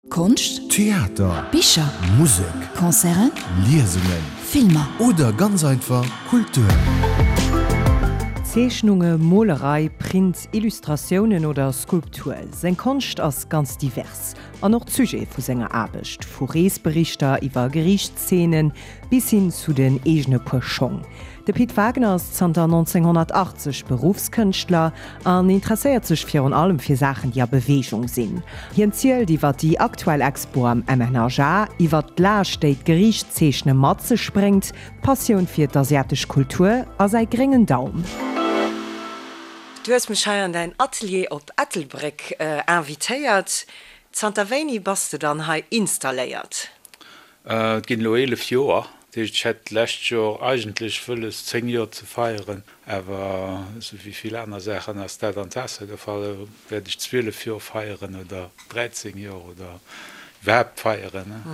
Konscht, Theater, Bicher, Musek, Concerten, Liesungen, Filmer. Oder ganz einfach Kultur. Zeechnunge, Molerei, Print, Illustratiounen oder Skulptur, seng Konscht ass ganz divers. An och d'Sujete vu senger Aarbecht, vu Reesberichter iwwer Geriichtsszenen bis hin zu den eegene Puer Schong. De Pit Wagner ass zanter 1980 Beruffskënschtler an interesséiert sech virun allem fir Saachen, déi a Beweegung sinn. Hien zielt iwwer déi aktuell Expo am MNHA, iwwer d'Laascht, déi d'Geriichtszeechne mat sech bréngt, d'Passioun fir d'asiatesch Kultur a säi gréngen Daum. Du hues mech hei an däin Atelier op Ettelbréck invitéiert. Zanter wéini bass de dann hei installéiert? Et ginn elo 11 Joer. Dat heescht, ech hätt d'lescht Joer eigentlech wëlles, 10 Joer ze feieren, awer esou wéi vill aner Saachen ass dat an d'Waasser gefall. Elo wäert ech 12 Joer feieren oder 13 Joer oder iwwerhaapt feieren.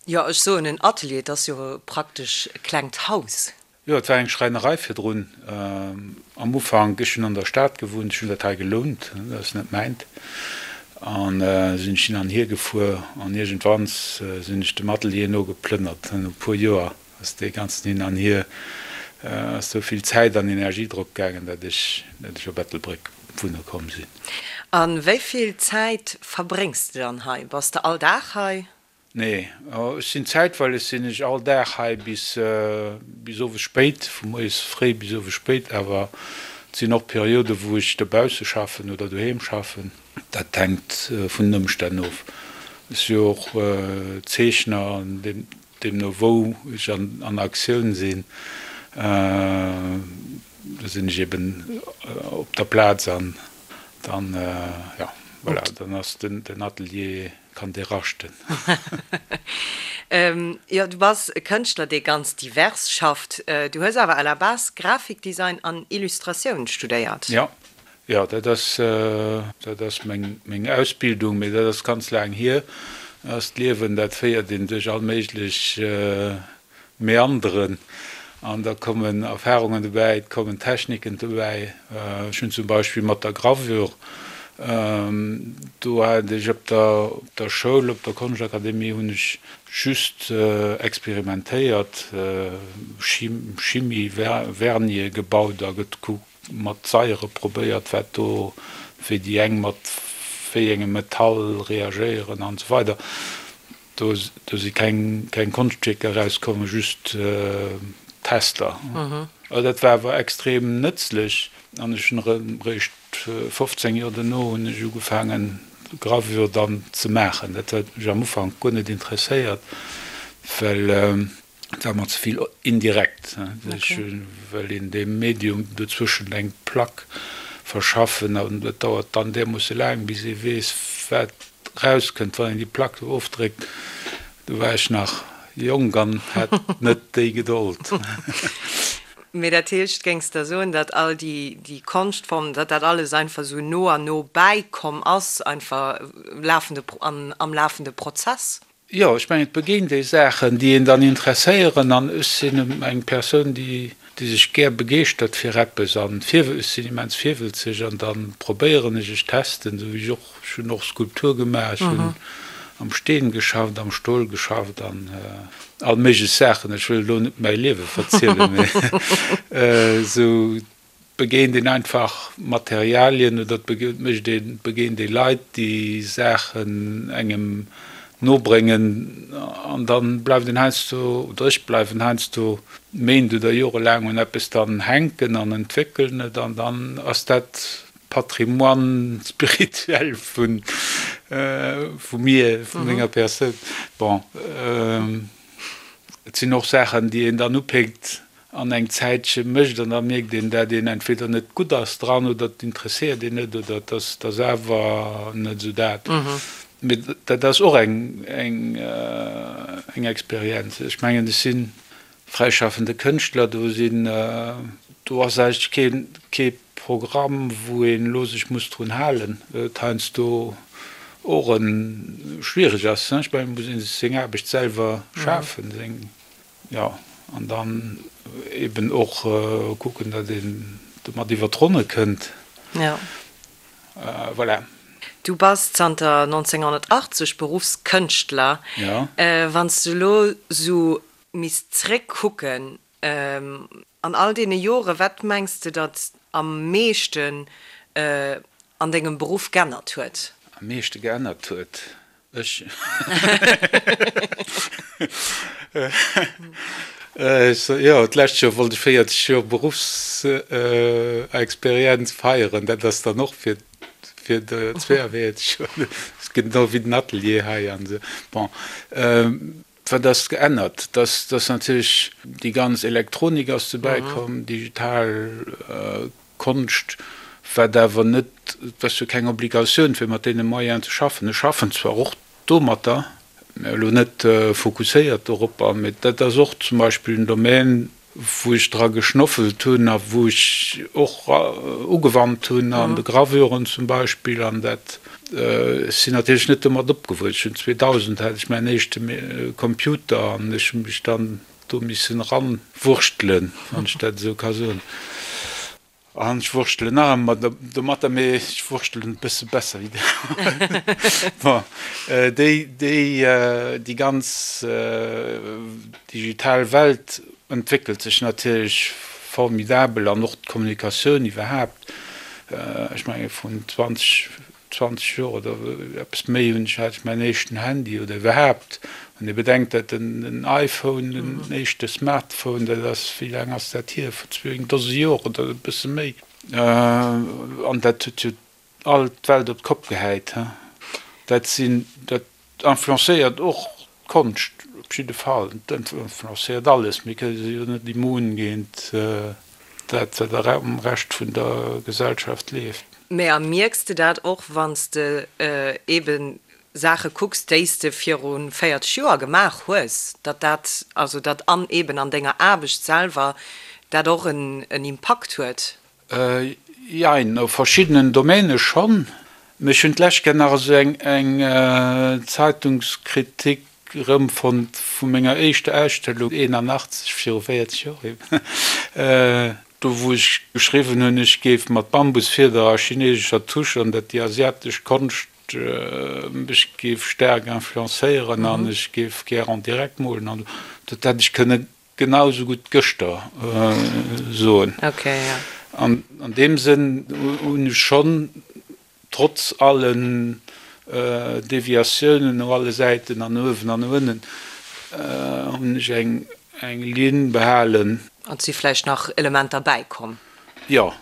Jo, ech soen en Atelier, et ass jo praktesch e klengt Haus. Jo, et war eng Schräinerei virdrun. Am Ufank, ech hunn an der Stad gewunnt, ech hunn dat hei gelount, dat ass net mäint, an sinn ech hin an hier gefuer an iergendwanns sinn ech dem Atelier no geplënnert. No e puer Joer ass dee ganzen Hin an Hier, ass sou vill Zäit an Energie drop gaangen, dat ech, dat ech op Ettelbréck wunne komm sinn. A wéi vill Zäit verbréngs de dann hei? Bass de all Dag hei? Nee, ech sinn zäitweileg sinn ech all Dag hei bis bis owes spéit, vu moies fréi bis owes spéit, awer et sinn och Perioden, wou ech dobausse schaffen oder doheem schaffen. Dat hänkt vun den Ëmstänn of. Ech si jo och Zeechner an deemno wou ech an Aktioun sinn, do sinn ech eben op der Plaz an dann, jo, voilà, dann ass den Atelier Kann dee raschten. Jo, du bass e Kënschtler, dee ganz divers schafft. Du hues awer à la base Grafikdesign an Illustratioun studéiert. Jo, jo, dat ass, dat ass meng, meng Ausbildung, mee dat ass ganz laang hier. Dat ass d'Liewen, dat féiert een duerch all méiglech Meanderen an da kommen Erfahrungen dobäi, et kommen Techniken dobäi. Ech hunn zum Beispill mat der Gravure, do hat ech op der op der Schoul, op der Konschtakademie hunn ech just experimentéiert, Chimie, Vernie gebaut a gekuckt, mat Saiere probéiert, wat do, wéi déi eng mat wéi engem Metall reagéieren an esou weider. Do, do si keng, keng Konschtwierker erauskomm, just Tester. Also dat war awer extrem nëtzlech an ech hunn erëm eréischt 15 Joer dono hunn ech ugefaangen Gravure dann ze maachen. Dat huet mech am Ufank guer net interesséiert, well Et war mer ze vill indirekt. Ech wëll een deem Medium dozwëschent eng Plack verschaffen an dat dauert dann därmoosse laang, bis ee weess, wat rauskënnt, wann een déi Plack do ofdréckt. Do war ech nach jonk an hat net déi Gedold. Mee dat heescht, géings de soen, datt all déi Konschtformen, datt dat alles einfach esou no an no bäikomm ass, einfach lafende, am lafende Prozess? Jo, ech mengen, et begéint ee Saachen, déi een dann interesséieren. An ech sinn eng Persoun, déi sech gär begeeschtert fir eppes an ech sinn immens virwëlzeg an da probéieren ech, ech testen, esou wéi ech och, ech hunn och Skulptur gemaach, ech hunn am Steen geschafft, am Stol geschafft an all méiglech Saachen. Ech wëll elo net mäi Liewe verzielen, mee esou begéint een einfach Materialien oder et mécht een, begéint ee Leit, déi Saachen engem nobréngen an da bleift een heiansdo, oder ech bleiwen heiansdo Méint oder jorelaang un eppes dann hänken an entwéckelen et an dann ass dat Patrimoine spirituel vu vu mir, vu menger Persoun. Bon, et sinn och Saachen, déi een dann upéckt an eng Zäitche mécht an da mierkt een, dat een entweder net gutt ass dran oder et interesséiert een net oder et ass et ass awer net esou dat. Mee dat ass och eng eng eng Experienz. Ech mengen, ech si fräischaffende Kënschtler, do sinn do ass eigentlech kee kee Programm, wou een elo sech muss drun halen, et heiansdo och e schwiereg ass. Ech mengen, et muss ee sech seng Aarbecht selwer schafen, seng. Jo, an dann eben och kucken, datt een domat iwwer d'Ronne kënnt. Jo. Voilà. Du bass zanter 1980 Beruffskënschtler. Jo. Wann s du elo sou misst zréckkucken an all deene Jore, wat mengs de datt am meeschten an dengem Beruff geännert huet? Am meeschte geännert huet? Ech. Jo, d'lescht Joer wollt ech 40 Joer Beruffsexperienz feieren. Dat ass dann och fir fir de 42 Joer. Dat ass genau wéi den Atelier hei an esou. Bon, wat ass geännert? Dass dass natierlech déi ganz Elektronik ass dobäi komm, digital Konscht, wat awer net, et ass jo keng Obligatioun fir mat deene Moyenen ze schaffen. Ech schaffen zwar och domatter, mä elo net fokusséiert doropper, mä dat ass och zum Beispill en Domän, wou ech dra geschnoffelt hunn a wou ech och ugewannt hunn an de Gravüren zum Beispill. An dat, ech sinn natierlech net domat opgewuess. Ech hunn 2000 hat ech mäin éischte Computer an ech hu mech dann do missen eranwurschtelen, wann ech dat esou ka soen. An ech wurschtelen nach ëmmer domatter, mee ech wurschtelen e bësse besser wéi déi. Bon, déi, déi, déi ganz digital Welt entwéckelt sech natierlech formidabel an och d'Kommunikatioun iwwerhaapt. Ech menge vrun 20, 20 Joer oder eppes méi hunn ech, hat ech mäin éischten Handy oder iwwerhaapt, wann ee bedenkt, datt den iPhone, den éischte Smartphone, dat ass, wéi laang ass dat hier, vor zwou, eng Dose Joer oder e bësse méi, an dat huet jo all d'Welt op d'Kopp gehäit. Dat sinn, dat influencéiert och d'Konscht op jidde Fall. Et influencéiert alles. Mir kënne jo net immun géint dat, wat am Rescht vun der Gesellschaft leeft. Mä a mierks de dat och, wann s de eebe Saache kucks, déi s de viru 40 Joer gemaach hues, datt dat, also datt an eeben an denger Aarbecht selwer dat och en Impakt huet? Jein, a verschiddenen Domäne schonn. Mee ech hunn d'lescht Kéier nach esou eng Zeitungskritik erëmfonnt vu menger éischter Ausstellung, 81, viru 40 Joer eben, do wou ech geschriwwen hunn, ech géif mat Bambusfieder a chinesescher Tusch an dat déi asiatesch Konscht mech géif staark influencéieren an ech géif gär en direct molen an dat hätt ech kënne Genau esou gutt gëschter soen. An an deem Sënn hunn ech schonn, trotz allen Deviatiounen no alle Säiten an no uewen an no ënnen, hunn ech eng Linn behalen. An et si vläicht nach Elementer bäikomm. Jo,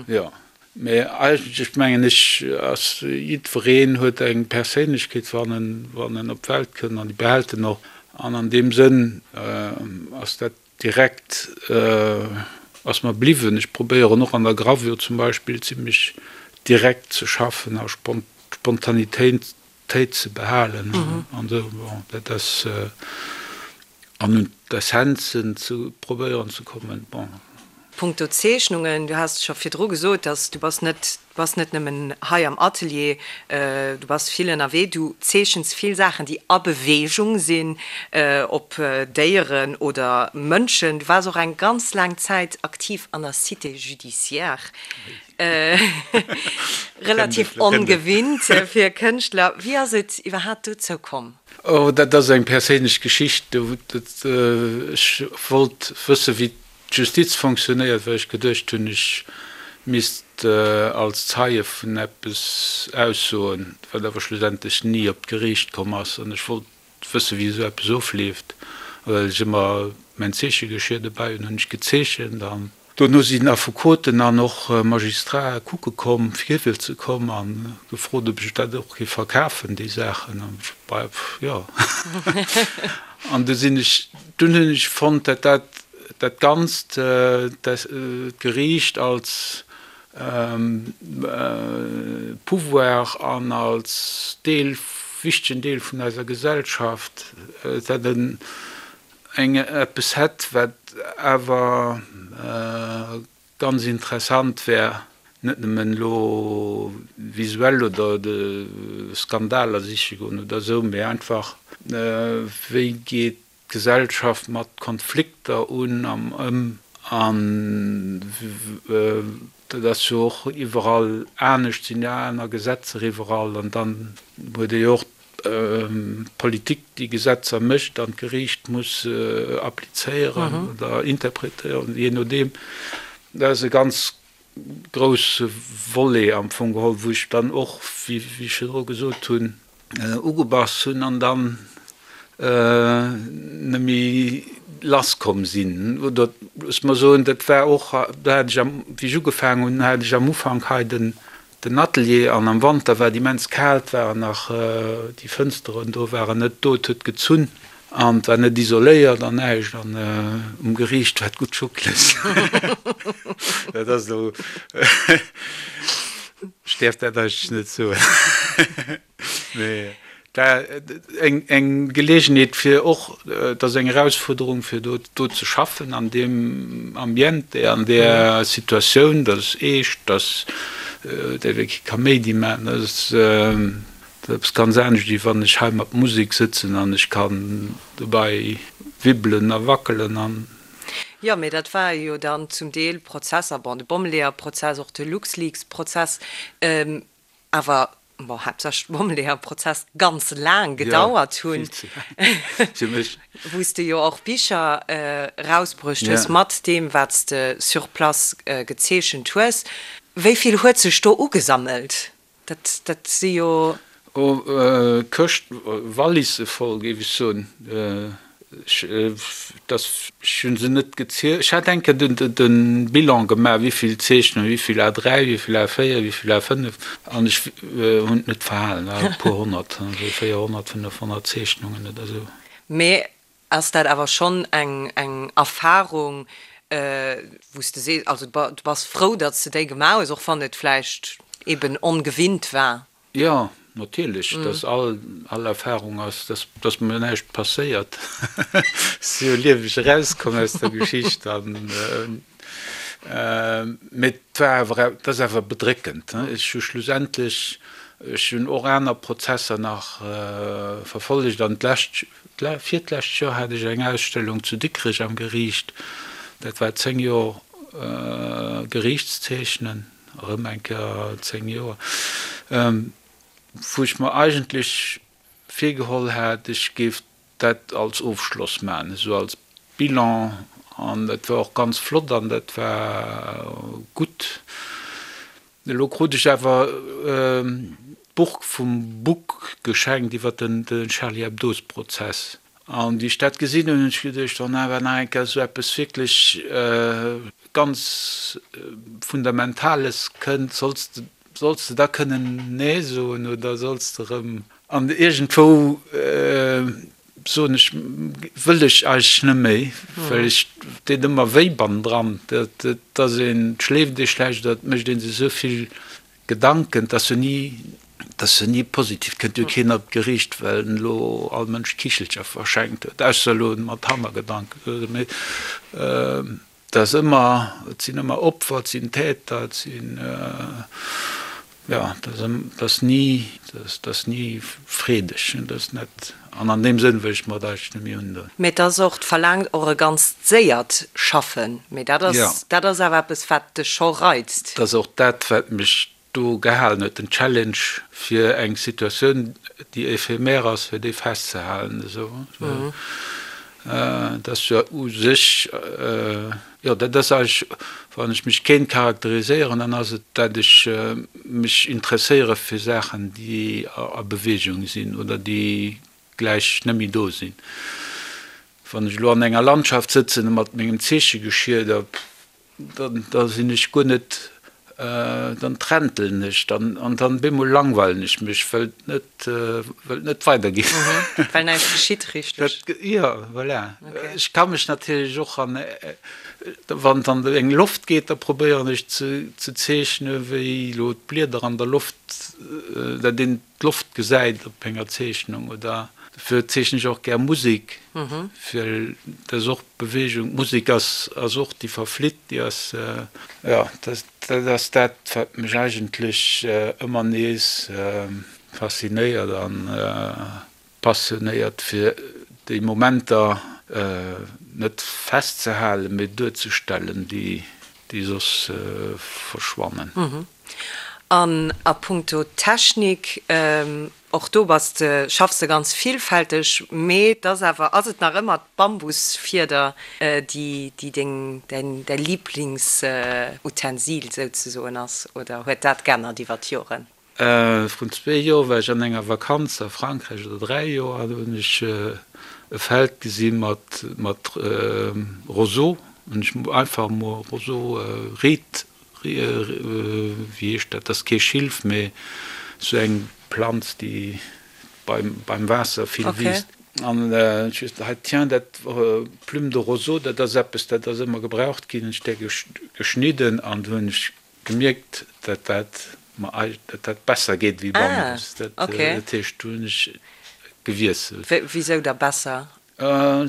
jo. Mä eigentlech mengen ech, ass jiddwereen huet eng Perséinlechkeet, wann en, wann en op d'Welt kënnt, an déi behält en och. An an deem Sënn ass dat direkt, ass mer bliwwen. Ech probéieren och an der Gravure zum Beispill zimlech direkt ze schaffen a Spontanitéit ze behalen an esou. Bon, dat ass, an un d'Essenzen ze probéieren ze kommen, bon. Punkto Zeechnungen, du has scho virdru gesot, dass du bass net, du bass net nëmmen hei am Atelier, du bass vill ënnerwee, du zeechens vill Saachen, déi a Beweegung sinn, ob Déieren oder Mënschen. Du waars och eng ganz laang Zäit aktiv an der Cité judiciaire, relativ ongewinnt fir e Kënschtler. Wéi ass et iwwerhaapt dozou komm? Oh, dat ass eng perséinlech Geschicht. Ech wollt wësse wéi D'Justiz fonctionnéiert, well ech geduecht hunn, ech misst als Zeie vun eppes aussoen, wat awer schlussendlech ni op d'Geriicht komm ass. An ech wollt wëssen, wéi esou eppes ofleeft. A well ech ëmmer mäin Zeechegeschier dobäi hunn, hunn ech gezeechent. An dono sinn Affekoten an och Magistrae kucke komm, fir ze komm a gefrot, ob ech dat och géif verkafen, déi Saachen. An ech, bah, jo. An du sinn ech, dunn hunn ech fonnt, dat dat dat Ganzt, d'Geriicht als Pouvoir an als Deel, wichtegen Deel vun eiser Gesellschaft, dat en eng eppes hätt, wat awer ganz interessant wär, net nëmmen elo visuell oder de Skandaler siche goen oder esou, mee einfach, wéi geet d'Gesellschaft mat Konflikter un am ëm a. Dat ass jo och iwwerall anescht, sinn jo aner Gesetzer iwwerall an dann huet ee jo och d'Politik déi Gesetzer mécht an d'Geriicht muss applizéieren oder interpretéieren, jee nodeem. Dat ass e ganz grousse Volet am Fong geholl, wou ech dann och, wéi ech virdru gesot hunn, ugebass hunn an dann net méi lass komm sinn. Oder loosse mer soen, dat war och, do hat ech am, wéi ech ugefaangen hunn, hat ech am Ufank hei den, den Atelier an am Wanter war et immens kal, et waren nach déi Fënsteren do waren net do, et huet gezunn an et war net isoléiert an näischt an um Geriicht war et gutt schuckleg. Dat ass elo, ech däerf dat eigentlech net soen. Mee dat eng eng Geleegenheet fir och, et ass eng Erausfuerderung fir do do ze schaffen an deem Ambiente, an där Situatioun, dat ass eescht, dat däerf ee kee Kaméidi maachen, dat ass eppes ganz anescht wéi wann ech hei mat Musek sëtzen an ech kann dobäi wibbelen a wackelen an. Jo, mee dat ware jo dann zum Deel Prozesser, bon, de Bommeleeër-Prozess, och de LuxLeaks-Prozess, awer bon, haaptsächlech de Bommeleeër-Prozess, ganz laang gedauert hunn, wou s de jo och Bicher erausbruecht hues mat deem, wat s de sur place gezeechent hues. Wéi vill huet sech do ugesammelt? Dat, dat si jo. Oh, Këscht, Walisse voll, géif ech soen. Ech, dass, ech hu se net gezielt. Ech hat eng Kéier den, de Bilan gemaach, wéi vill Zeechnungen, wéi vill A3, wéi vill A4, wéi vill A5, an ech hunn et net verhalen, war e puer honnert, esou 400, 500 Zeechnungen oder esou. Mee ass dat awer schonn eng, eng Erfarung, wou s de sees, also du bass frou, datt s de déi gemaach hues, och wann et vläicht eeben ongewinnt war? Jo, natierlech, dass all, all Erfahrung ass, dass, dass mer näischt passéiert. Ech si jo lieweg erauskomm aus der Geschicht an, mee et war awer, et ass awer bedréckend. Ech hu schlussendlech, ech hunn och aner Prozesser nach verfollegt an d'lescht, virtlescht Joer hat ech eng Ausstellung zu Dikrech am Geriicht, dat war 10 Joer Geriichtszeechnen. erëm eng Kéier 10 Joer, wou ech mer eigentlech virgeholl hat, ech géif dat als Ofschloss maachen, esou als Bilan, an dat war och ganz flott an dat war gutt. Elo krut ech awer d'Buch vum Buck geschenkt iwwer den Charlie Hebdo-Prozess. An wéi ech dat gesinn hunn, hunn ech geduecht, wann awer nach eng Kéier esou eppes wierklech ganz Fundamentales kënnt, solls de, solls de da kënnen Nee soen oder solls de erëm. An iergendwou soen ech, wëll ech eigentlech net méi, well ech deet ëmmer wéi bannendran, dat ass een, et schléift ee schlecht oder et mécht ee sech esou vill Gedanken, 't ass jo ni, 't ass jo ni positiv, 't kënnt jo keen op d'Geriicht, well en elo all Mënsch Kichelcher verschenkt huet, ausser elo mat Hannergedanken, mee 't ass ëmmer, et sinn ëmmer Opfer, et sinn Täter, et sinn, jo, 't ass, 't ass ni, 't ass ni freedeg, 't ass net, an an deem Sënn wëll ech mer et eigentlech net méi undoen. Mee 't ass och, 't verlaangt och e ganzt séiert Schaffen, mee dat ass, dat ass awer eppes, wat dech scho reizt. 't ass och dat, wat mech do gehalen huet, den Challenge fir eng Situatioun, déi éphémère ass, fir déi festzehalen esou. Dat ass jo u sech, jo, dat ass eigentlech, wann ech mech kéint charakteriséieren, dann ass et, dat ech mech interesséiere fir Saachen, déi a Beweegung sinn oder déi gläich net méi do sinn. Wann ech elo an enger Landschaft sëtzen mat mengem Zeechegeschier, da da sinn ech guer net, dann trentelen ech dann an dann bemol langweilen ech mech, well et net, well et net weidergeet. Well näischt geschitt, richteg? Jo, voilà. Ech ka mech natierlech och an, wann et an eng Loft geet, da probéieren ech ze zeechne wéi elo d'Blieder an der Loft, dat een d'Loft gesäit op enger Zeechnung oder dofir zeechnen ech och gär Musek, well dat ass och Beweegung. D'Musek ass ass och, déi verflitt, déi ass, jo, dat ass dat, wat mech eigentlech ëmmer nees faszinéiert an passionéiert, fir déi Momenter net festzehalen, mee duerzestellen, déi. déi soss verschwannen. An a punkto Technik, och do bass de, schaffs de ganz villfälteg, mee et ass awer, ass et nach ëmmer d'Bambusfieder, déi, déi deng, däin, däi Liiblingsutensil souzesoen ass, oder huet dat g'ännert iwwer d'Joren? Vrun zwee Joer war ech an enger Vakanz a Frankräich, oder 3 Joer, an do hunn ech e Feld gesi mat mat Roseau. Hunn ech einfach emol Roseau, Ried, wéi heescht dat, dat ass kee Schilf, mee esou eng Planz, déi beim beim Waasser vill wiisst. An ech hu gesot, hei tiens, dat Plume de roseau, dat ass eppes, dat ass ëmmer gebraucht ginn. Hunn ech där geschnidden an du hunn ech gemierkt, dat dat mer dat dat besser geet wéi Bambus. Dat heescht, do hunn ech gewiesselt. Wisou da besser?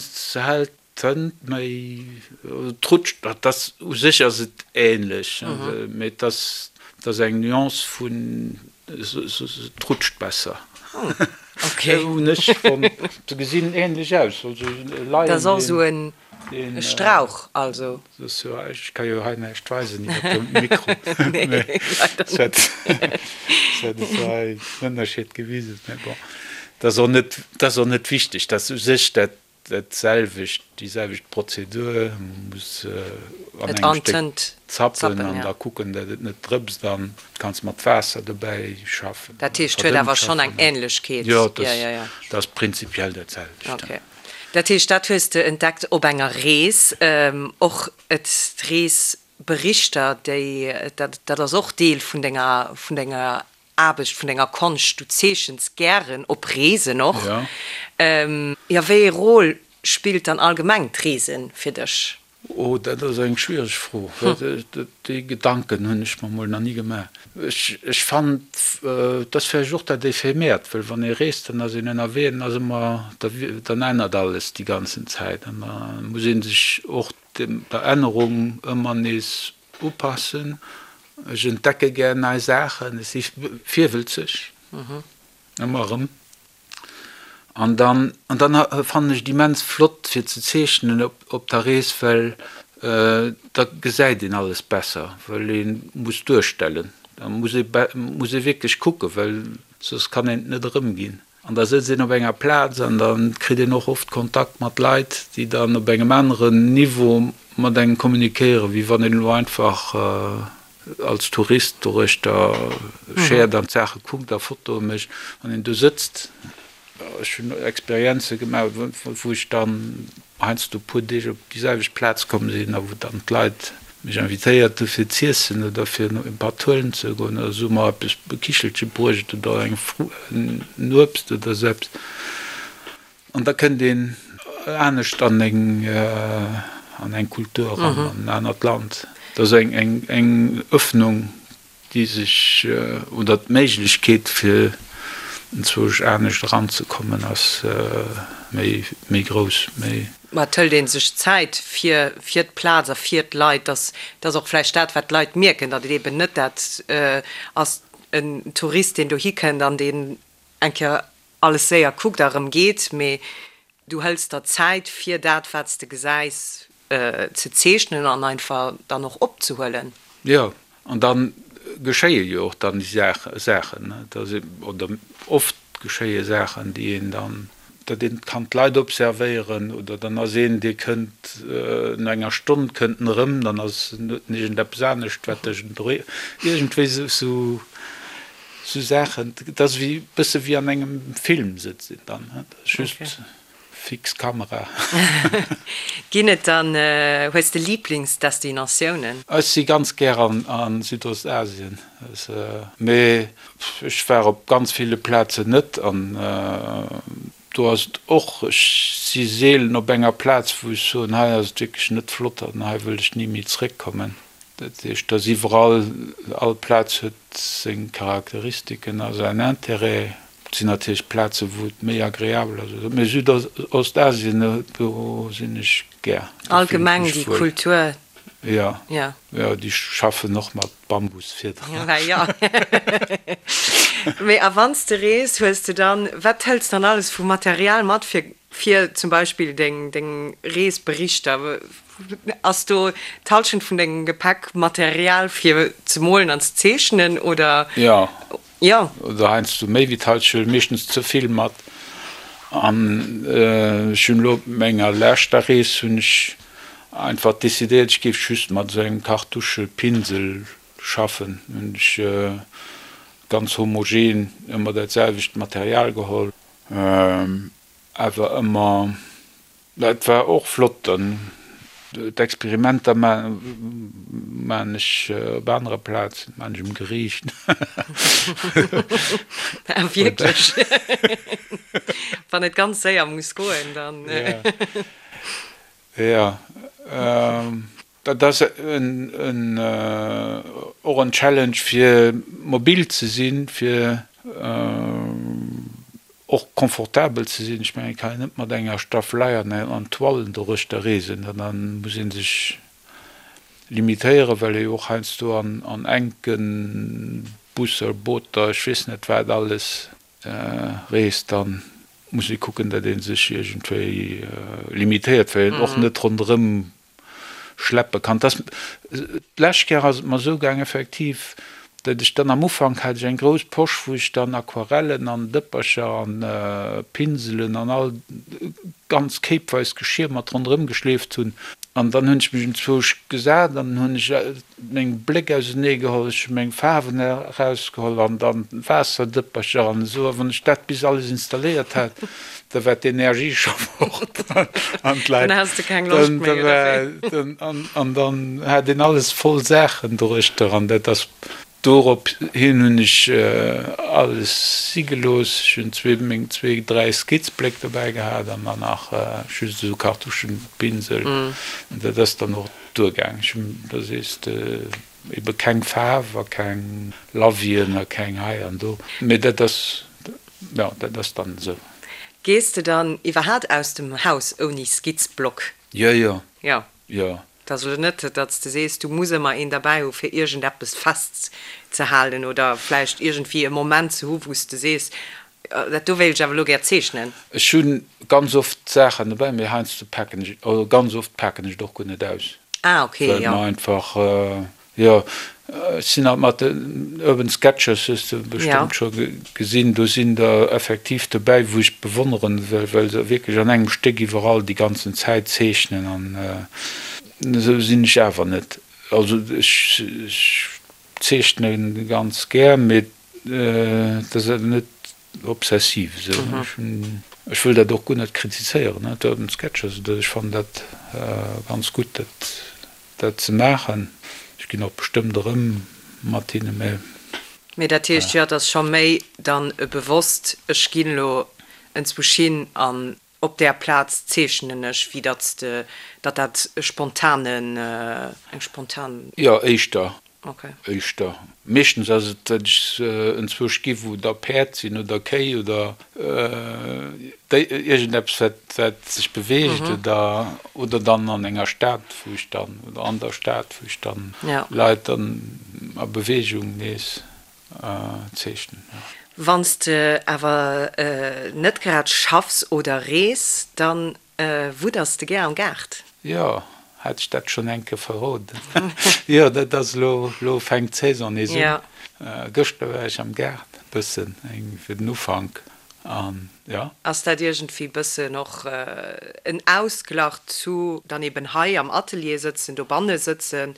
Se hält d'Tënt méi, et rutscht, dat ass u sech ass et ähnlech, mee et ass et ass eng Nuance vun, et rutscht besser. Hunn ech fonnt. Se gesinn ähnlech aus, also leien. Dat ass och esou en E Strauch also. Ech ka jo hei näischt weisen iwwer de Mikro. Nee, leider net. Ech hätt et hei den Ënnerscheed gewisen, mä bon, dat ass och net, dat ass och net wichteg. Dat ass u sech dat dat selwecht, déi selwecht Prozedur. Man muss an engem Stéck zappen an da kucken, datt et net drëpst an kanns mat Waasser dobäi schaffen. Dat heescht, huet awer schonn eng Änlechkeet. Jo, dat ass prinzipiell dat selwecht. Dat heescht, dat hues de entdeckt op enger Rees. Och d'Reesberichter, déi, dat, dat ass och Deel vun denger, vun denger Aarbecht, vun denger Konscht. Du zeechens gären op Reesen och. Jo, wéi ee Rôle spillt dann allgemeng d'Reese fir dech? Oh, dat ass eng schwiereg Fro. Déi Gedanken hunn ech mer mol nach ni gemaach. Ech fannen, et ass vläicht och dat Ephemeert, well wann ee reest, dann ass een ënnerwee an ass ëmmer, dann ännert alles déi ganzen Zäit an da muss ee sech och der Ännerung ëmmer nees upassen. Ech entdecke gär nei Saachen, ech si virwëlzeg, ëmmer erëm. An dann, an dann fannen ech et immens flott fir ze zeechnen op, op der Rees, well da gesäit een alles besser, well ee muss duerstellen. Da muss ee, muss ee wierklech kucken, well soss kann een et net erëmginn. An da sëtzt een op enger Plaz an da kritt een och oft Kontakt mat Leit, déi dann op engem aneren Niveau mat engem kommunikéieren, wéi wann een elo einfach als Tourist doruechter schäert an d'Saache kuckt a Fotoe mécht, wann een do sëtzt, ech hunn Experienze gemaach, wou ech dann heiansdo e puer Deeg op déi selwecht Plaz komm sinn a wou dann d'Leit mech invitéiert hu fir z'iessen oder fir e Patt huelen ze goen oder se hu mer eppes, e Kichelche bruecht oder eng en Uebst oder esou eppes. An da kënnt een anescht an eng an eng Kultur eran, an en anert Land. Dat ass eng eng eng Öffnung, déi sech, oder d'Méiglechkeet fir enzwousch anescht eranzekommen ass méi méi grouss, méi. Ma et hëlt ee sech Zäit fir fir d'Plaz a fir d'Leit. Dass dass och vläicht dat, wat d'Leit mierken, datt et eeben net dat ass, en Tourist, deen dohi kënnt an deen eng Kéier alles séier kuckt a rëm geet, mee du hëls der Zäit fir dat wat s de gesäis ze zeechnen an einfach dann och opzehuelen. Jo, an da geschéie jo och dann déi Saachen, oder oft geschéie Saachen, déi een dann, datt een kann d'Leit observéieren, oder dann ass een, dee kënnt no enger Stonn kënnt en erëm, dann ass en huet en iergendeppes anescht wat dech iergendwéi esou. Sou Saachen, et ass wéi bësse wéi an engem Film sëtzt een dann, et ass just fix Kamera. Ginn et dann, hues de Liiblingsdestinatiounen? Ech si ganz gär an Südostasien, mee ech war op ganz ville Plazen net an do ass et och, ech si seelen op enger Plaz wou ech soen, hei ass et wierklech net flott an hei wëll ech ni méi zréckkommen. Dat heescht, dass iwwerall, all Plaz huet seng Charakteristiken a säin Intérêt. Et sinn natierlech Plazen, wou et méi agreabel ass, mee Südostasien, do sinn ech gär. Allgemeng déi Kultur. Jo, jo, déi schaffen och mat Bambusfiederen. Jo. Mee a wann s de rees, hues de dann, wat hëls dann alles vu Material mat fir, fir zum Beispill deng, deng Reesberichter? Ass do d'Hallschent vun dengem Gepäck Material fir ze molen an ze zeechnen, oder? Jo. Jo. Oder heiansdo méi wéi d'Hallschent, meeschtens ze vill mat. An ech hunn elo op menger leschter Rees hunn ech einfach decidéiert, ech géif just mat esou engem Kartuschepinsel schaffen. Hunn ech ganz homogen ëmmer dat selwecht Material geholl, awer ëmmer, dat war och flott. Dann d'Experimenter maan ech op anere Plazen, maan ech um Geriicht. Ah wierklech? Wann et ganz séier muss goen, dann. Jo. Dat ass och en Challenge fir mobil ze sinn, fir och confortabel ze sinn. Ech mengen, et kann een net mat enger Staffelei an Toilen doruechter reesen, da muss ee sech limitéieren, well ee jo och heiansdo an enke Busser, Booter, ech weess net wat alles reest. Dann muss ee kucken, datt ee sech iergendwéi limitéiert, well een och net ronderëm schleppe kann. Dass, d'lescht Kéier ass et mer esou gaang effektiv, datt ech dann am Ufank hat ech eng grouss Posch, wou ech dann Aquarellen an Dëppercher an Pinselen an all ganz kéipweis Geschir mat ronderëm geschleeft hunn. An dann hunn ech mech enzwousch gesat an hunn ech meng Bléck ausenee geholl, ech hu meng Faarwen erausgeholl an dann Waasserdëppercher an esou. A wann ech dat bis alles installéiert hat, da war d'Energie scho fort an d'Leit. Dann has de keng Loscht méi, oder wéi? An dann hat een alles voll Saachen doruechter an dat ass. Dorop hin hunn ech alles si gelooss. Ech hunn zwee, meng zwee, dräi Skizzbléck dobäi gehat an dann nach just esou Kartuschenpinsel. An dat ass dann och duergaang. Ech hunn, da sees de, ebe keng Faarf a keng Lavien a keng hei an do. Mee dat ass, jo, dat ass dann esou. Gees de dann iwwerhaat aus dem Haus ouni Skizzblock? Jo, jo. Jo. Jo. Et ass elo net, datt s de sees, du muss ëmmer een derbäi hu fir iergendeppes festzehalen oder vläicht iergendwéi e Moment ze hu wou s de sees, dat do wéilt ech awer elo gär zeechnen. Ech hu ganz oft Saachen dobäi, mee heiansdo paken ech, also ganz oft paken ech et och guer net aus. Ah okay, jo. Well mer einfach, jo, ech sinn halt mat den Urban Sketchers, hues de bestëmmt scho gesinn, do sinn der effektiv dobäi, wou ech bewonneren, well se wierklech an engem Stéck iwwerall déi ganzen Zäit zeechnen an esou sinn ech awer net. Also ech zeechne ganz gär, mee et ass awer net obsessiv esou. Ech hunn, ech wëll dat och guer net kritizéieren, d'Urban Sketchers, ech fannen dat ganz gutt, dat dat ze maachen. Ech ginn och bestëmmt erëm mat hinne, mä. Mee dat heescht jo, et ass scho méi dann e bewosst, ech ginn elo enzwousch hin an op där Plaz zeechnen ech, wéi datt s de, datt dat e spontanen, eng spontan. Jo, éischter. Éischter. Meeschtens ass et, datt ech enzwousch gi wou da Päerd sinn oder Kéi oder iergendeppes wat wat sech beweegt oder oder dann an enger Stad wou ech dann oder an der Stad wou ech dann Leit dann a Beweegung nees zeechnen. Wann s de awer net grad schaffs oder rees, dann Wudders de gär am Gaart? Jo, hat ech dat schonn eng Kéier verroden? Jo, dat ass elo, elo fänkt d'Saison nees un. Gëschter war ech am Gaart, bëssen eng fir den Ufank an jo. Ass dat iergendwéi bëssen och en Ausglach zu dann eben hei am Atelier sëtzen, dobanne sëtzen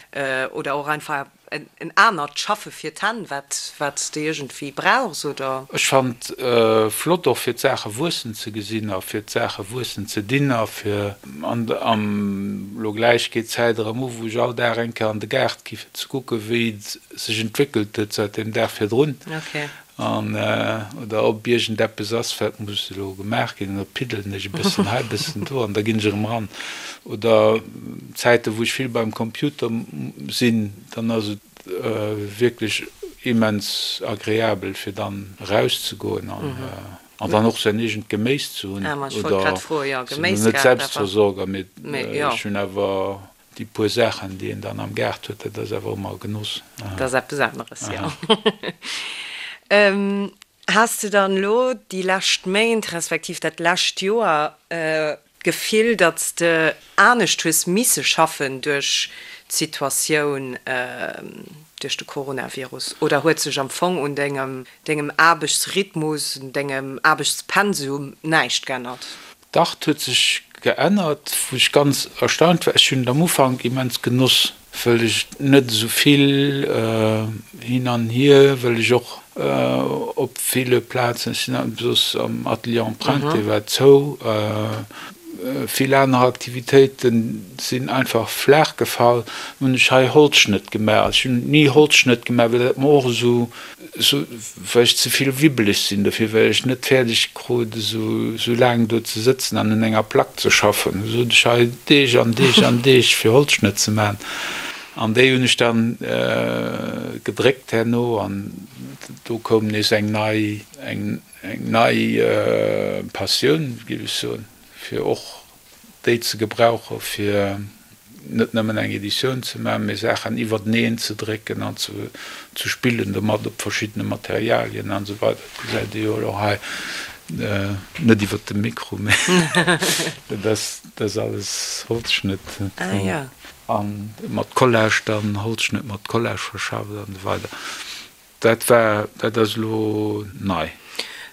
oder och einfach En anert Schaffe fir d'Hänn, wat wat s de iergendwéi brauchs, oder? Ech fannt flott och fir d'Saache wuessen ze gesinn a fir d'Saache wuessen ze dinn a fir an am lo gläich geet d'Zäit erëm u wou ech all Dag eng Kéier an de Gaart gi fir ze kucke wéi et sech entwéckelt huet säit dem Dag virdrun. An oder ob iergendeppes ass, wat muss elo gemaach ginn, an da piddelen ech e bëssen hei, e bëssen do an da ginn ech erëm eran. Oder Zäiten, wou ech vill beim Computer sinn, dann ass et wierklech immens agreabel, fir dann erauszegoen an an dann och säin eegent Geméis ze hunn. Oder ech sinn elo net Selbstversorger, mee ech hunn awer Déi puer Saachen, déi een dann am Gaart huet, dat ass awer ëmmer e Genoss. Dat ass eppes aneres, jo. Has de dann elo déi lescht Méint, respektiv dat lescht Joer. D'Gefill, datt s de anescht hues misse schaffen duerch d'Situatioun duerch de Coronavirus? Oder huet sech am Fong un dengem dengem Aarbechtsrhythmus, un dengem Aarbechtspensum näischt geännert? Dach, 't huet sech geännert, wou ech ganz erstaunt war. Ech hunn et am Ufank immens genoss, wëll ech net esou vill hin an hier, wëll ech och op ville Plazen, ech sinn soss am Atelier Empreinte, dee war zou, vill aner Aktivitéite sinn einfach flaach gefall, hunn ech hei Holzschnëtt gemaach. Ech hunn ni Holzschnëtt gemaach, well dat mer och esou Sou, well ech ze vill wibbeleg sinn dofir, well ech net fäerdeg krut esou sou laang do ze sëtzen an un enger Plack ze schaffen. Sou sot ech hei Deeg an Deeg an Deeg fir Holzschnëtt ze maachen. An déi hunn ech dann gedréckt herno an do koum nees eng nei, eng nei Passioun, géif ech soen, fir och déi ze gebrauche fir net nëmmen eng Editioun ze maachen, mee Saachen iwwerteneen ze drécken an ze spillen domat op verschiddene Materialien an esou weider. Dat gesäit ee jo elo hei, net iwwert de Mikro, mee dat ass alles Holzschnëtt a mat Collage dann, Holzschnëtt mat Collage verschafft an esou weider. Dat war, dat ass elo nei.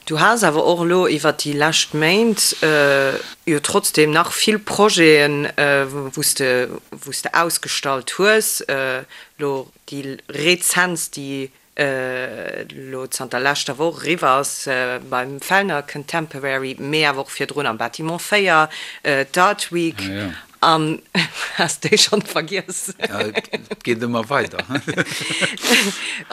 Du has awer och elo iwwert déi lescht Méint jo trotzdem nach vill Projeten, wou s de, wou s de ausgestallt hues. Elo déi rezentst, déi elo zanter leschter Woch eriwwer ass beim Fellner Contemporary, mee awer och virdrun am Bâtiment 4, d'Art Week. An has déi schonn vergiess? Et geet ëmmer weider.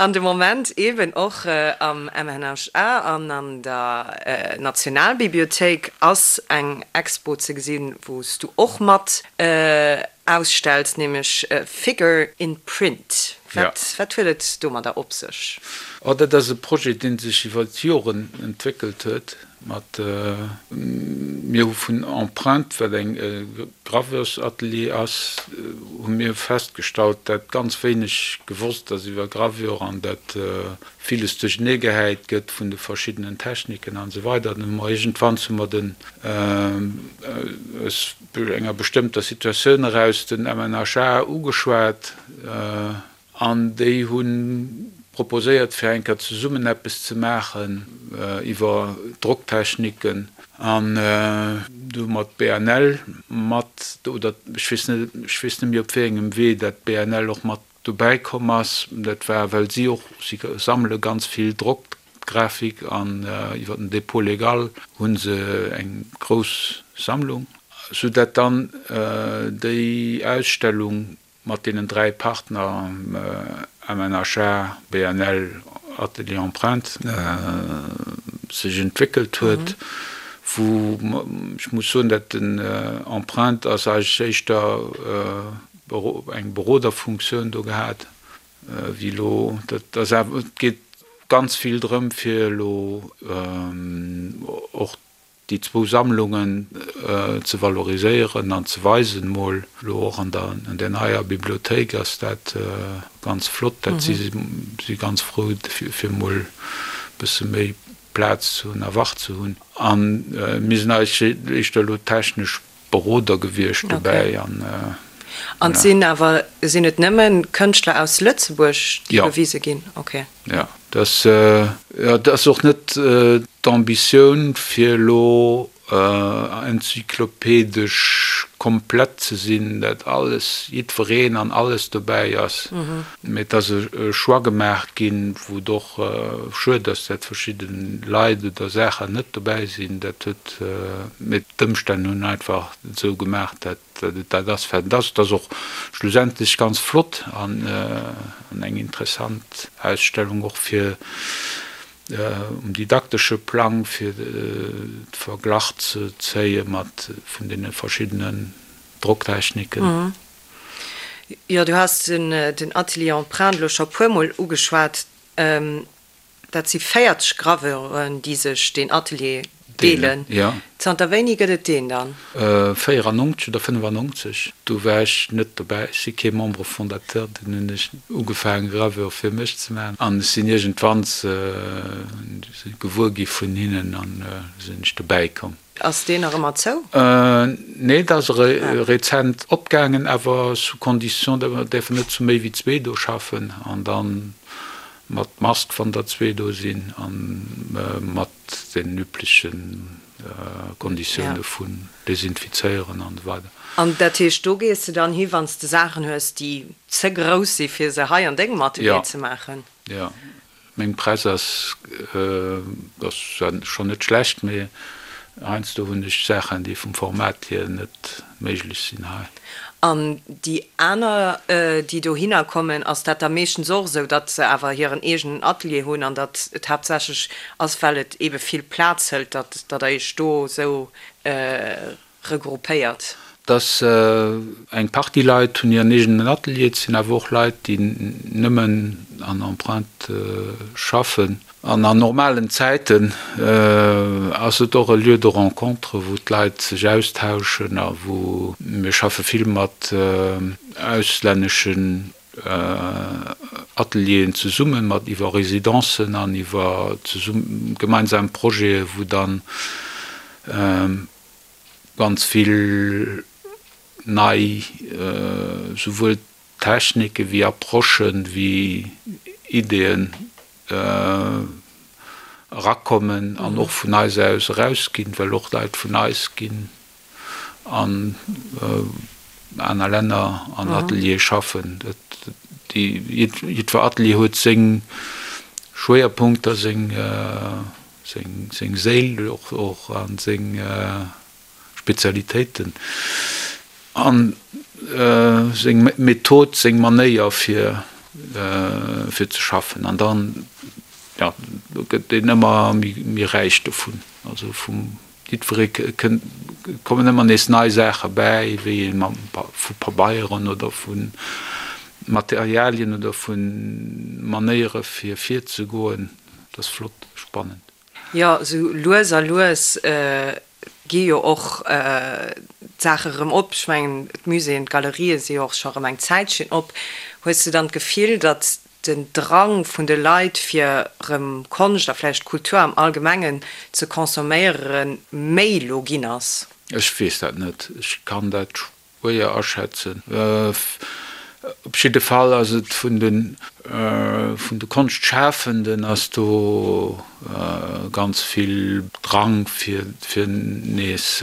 An de Moment eben och am MNHA an an der Nationalbibliothéik ass eng Expo ze gesinn, wou s du och mat ausstells, nämlech Figure in Print. Wat huet et domadder op sech? Oh, dat ass e Projet, dee sech iwwer d'Joren entwéckelt huet. Mat mir hu vun Empreinte, wat eng Graveursatelier ass, hu mir festgestallt, dat ganz wéineg gewosst ass iwwer Gravure an dat villes duerchenee gehäit gëtt vun de verschiddenen Techniken an esou weider. Dann hu mer iergendwann hu mer den aus enger bestëmmter Situatioun eraus den MNHA ugeschwat. An déi hu proposéiert, fir eng Kéier zesummen eppes ze maachen iwwer Drocktechniken. An du hu mer d'BNL mat, oder ech weess net, ech weess net méi op wéi engem Wee dat d'BNL och mat dobäi komm ass. Dat war, well si och, si sammele ganz vill Drockgrafik an iwwer den Dépôt légal hu se eng grouss Sammlung, soudatt dann déi Ausstellung Mat deenen 3 Partner, MNHA, BNL, Atelier Empreinte, sech entwéckelt huet, wou ech muss soen, dat den Empreinte ass eigentlech éischter eng Beroderfunktioun do gehat wéi elo. Dat ass awer, et geet ganz vill drëm fir elo och déi zwou Sammlungen ze valoriséieren an ze weisen, mol elo och an der an där neier Bibliothéik ass dat ganz flott, dat si si ganz frou fir mol e bësse méi Plaz ze hunn a Wach ze hunn. A mir sinn eigentlech éischter elo technesch Beroder gewiescht dobäi an. An et sinn awer, sinn et nëmme Kënschtler aus Lëtzebuerg, déi gewise ginn? Okay. Jo, dat, jo, dat ass och net d'Ambitioun, fir elo enzyklopedesch komplett ze sinn, dat alles, jiddwereen an alles dobäi ass. Mee et ass e Choix gemaach ginn, wou et och schued ass, dat verschidde Leit oder Saachen net dobäi sinn. Dat huet, mee d'Ëmstänn hunn einfach et esou gemaach, dat et dat ass, wat et ass. Et ass och schlussendlech ganz flott an eng interessant Ausstellung och fir um didaktesche Plang, fir de Verglach ze zéie mat vun deene verschiddenen Drocktechniken. Jo, du has den Atelier Empreinte elo scho puermol ugeschwat. Dat si 40 Graveuren, déi sech deen Atelier deelen. Zanter wéini gëtt et deen dann? 94 oder 95, do war ech net dobäi. Ech si kee Membre fondateur. Dunn hunn ech ugefaangen, Gravure fir mech ze maachen. An ech sinn iergendwann gewuer gi vun hinnen an sinn ech dobäi komm. Ass deen nach ëmmer zou? Nee, dat ass rezent opgaangen, awer sous condition, datt mer däerfen net zu méi wéi zwee do schaffen an da mat Mask, wann der zwee do sinn, a mat den übleche Konditioune vun desinfizéieren an esou weider. An dat heescht, do gees de dann hi wann s de Saachen hues, déi ze grouss si fir se hei an dengem Atelier ze maachen? Jo, Meng Press ass ass schonn net schlecht, mee heiansdo hunn ech Saachen, déi vum Format hier net méiglech sinn hei. An déi aner, déi dohinner kommen, ass dat da meeschtens och esou, datt se awer hiren eegenen Atelier hunn an datt et haaptsächlech ass, well et eebe vill Plaz hëlt, datt der Iech do esou regroupéiert? Dass eng Partie Leit hunn hiren eegenen Atelier, et sinn awer och Leit, déi nëmmen an Empreinte schaffen. An an normalen Zäiten ass et och e Lieu de rencontre, wou d'Leit sech austauschen a wou mir schaffe vill mat auslänneschen Atelieren zesummen, mat iwwer Residencen an iwwer gemeinsam Projete, wou dann ganz vill nei souwuel Technike wéi Approchen, wéi Ideeën erakommen an och vun eis aus erausginn, well och Leit vun eis ginn an aner Länner an Ateliere schaffen. Jiddwer Atelier huet seng Schwéierpunkter, seng Seng Séil och a seng Spezialitéiten a seng Method, seng Manéier fir fir ze schaffen. An dann, jo, do gëtt een ëmmer méi räich dovun. Also vum jiddweree kënnt, kommen ëmmer nees nei Saache bäi, wéi ee mam vu Pabeieren oder vu Materialien oder vu Manéiere fir virzegoen. Dat ass flott, spannend. Jo, esou lues a lues gi jo och d'Saache rëm op. Ech mengen, d'Muséeën, d'Galerië si jo och scho rëm eng Zäitchen op. Hues de dann d'Gefill, datt den Drang vun de Leit, fir rëm Konscht a vläicht Kultur am Allgemengen ze consomméieren, méi lo ginn ass? Ech weess dat net. Ech kann dat Schwéier aschätzen. Op jidde Fall ass et vun de vun de Konschtschafenden ass do ganz vill Drang fir fir nees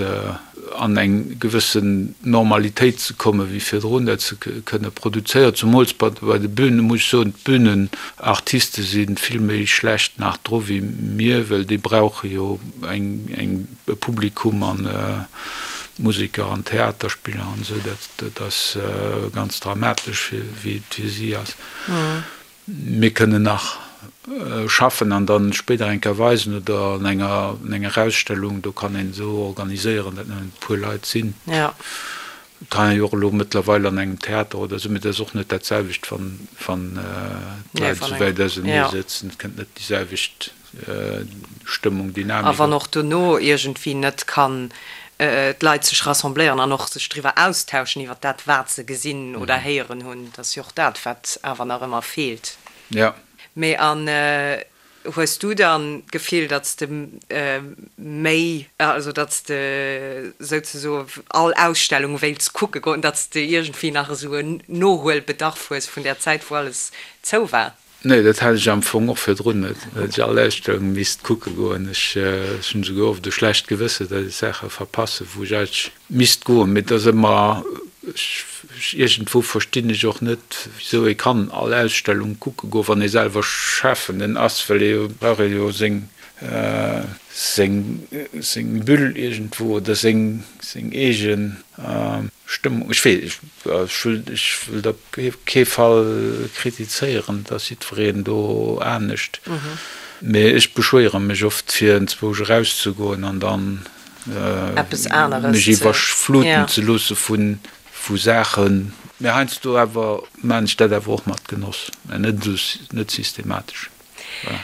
an eng gewëssen Normalitéit ze kommen, wéi virdrun, dat se kënne produzéieren. Zumools bei bei de Bühnen, muss ech soen, d'Bühnenartiste si vill méi schlecht nach dru wéi mir, well déi brauche jo eng eng e Publikum an Museker an Theaterspiller an esou, dat ass ganz dramatesch wéi et fir si ass. Mir kënnen nach schaffen an dann spéider eng Kéier weisen oder an enger an enger Ausstellung, do kann een esou organiséieren, datt nëmmen e puer Leit sinn. Et kann ee jo och elo mëttlerweil an engem Theater oder esou, mee dat ass och net dat selwecht, wann wann d'Leit esou wäit ausenee sëtzen, et kënnt net déi selwecht Stëmmung, Dynamik. A wann och dono iergendwéi net kann d'Leit sech rassembléieren an och sech driwwer austauschen iwwer dat, wat se gesinn oder héieren hunn, dat ass jo och dat, wat awer nach ëmmer feelt. Jo. Mee an hues du dann d'Gefill, datt s de méi, also datt s de souzesoe all Ausstellung wéilts kucke goen, datt s de iergendwéi nach esou en Nohuelbedarf hues vun där Zäit, wou alles zou war? Nee, dat hat ech am Fong och virdrun net, datt ech all Ausstellung misst kucke goen. Ech hunn esouguer oft e schlecht Gewësse, datt ech Saache verpassen, wou ech eigentlech misst goen. Mee et ass ëmmer, ech, iergendwou verstinn ech och net, wisou ee kann all Ausstellung kucke goen, wann ee selwer Schafenden ass, well ee brauch ee jo seng, seng, seng Bulle iergendwou oder seng, seng eegen Stëmmung. Ech weess, ech wëll, ech wëll op kee Fall kritizéieren, et ass jiddwereen do anescht, mee ech beschwéiere mech oft fir enzwousch erauszegoen an dann Eppes aneres mech iwwerfluten ze loosse vu Saachen. Mee heiansdo awer maan ech dat awer och mat Genoss, mä net esou, net systematesch. Voilà.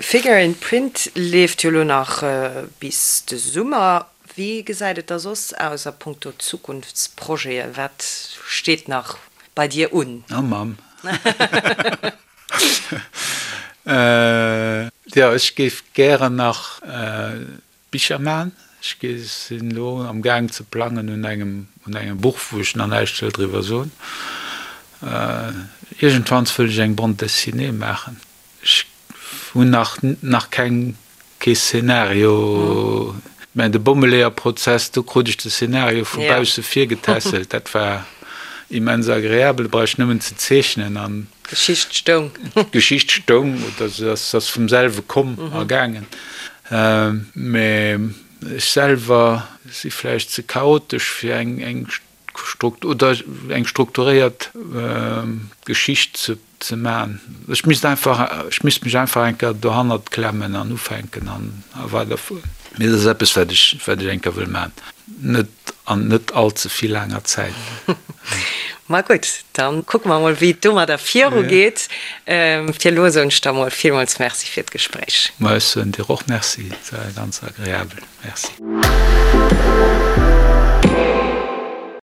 Figure in Print leeft jo lo nach bis de Summer. Wéi gesäit et da soss aus a punkto Zukunftsprojete? Wat steet nach bei dir un? Oh Mamm. Jo, ech géif gären nach Bicher maachen. Ech sinn elo am Gaang ze plangen un engem, un engem Buch, wou ech nach näischt wëll driwwer soen. Iergendwanns wëll ech eng Bande dessinée maachen. Ech hunn nach, nach keng, kee Szenario. Mä de Bommeleeërprozess, do krut ech de Szenario vu bausse virgetässelt. Dat war immens agreabel, brauch ech nëmmen ze zeechnen an. D'Geschicht stoung. D'Geschicht stoung oder se ass vum selwe komm a gaangen. Mä ech selwer si vläicht ze chaotesch fir eng eng oder eng strukturéiert Geschicht ze ze man. Ech misst einfach, ech misst mech einfach eng Kéier dohannert klemmen an ufänken an a weiderfueren. Mee dat ass eppes wat ech wat ech eng Kéier wëll man. Net an net all ze vill laanger Zäit. Ma gutt, dann kucke mer mol wéi et domadder viru geet. Fir elo soen ech der mol villmools Merci fir d'Gespréich. Ma ech soen dir och Merci, et war ganz agreabel. Merci.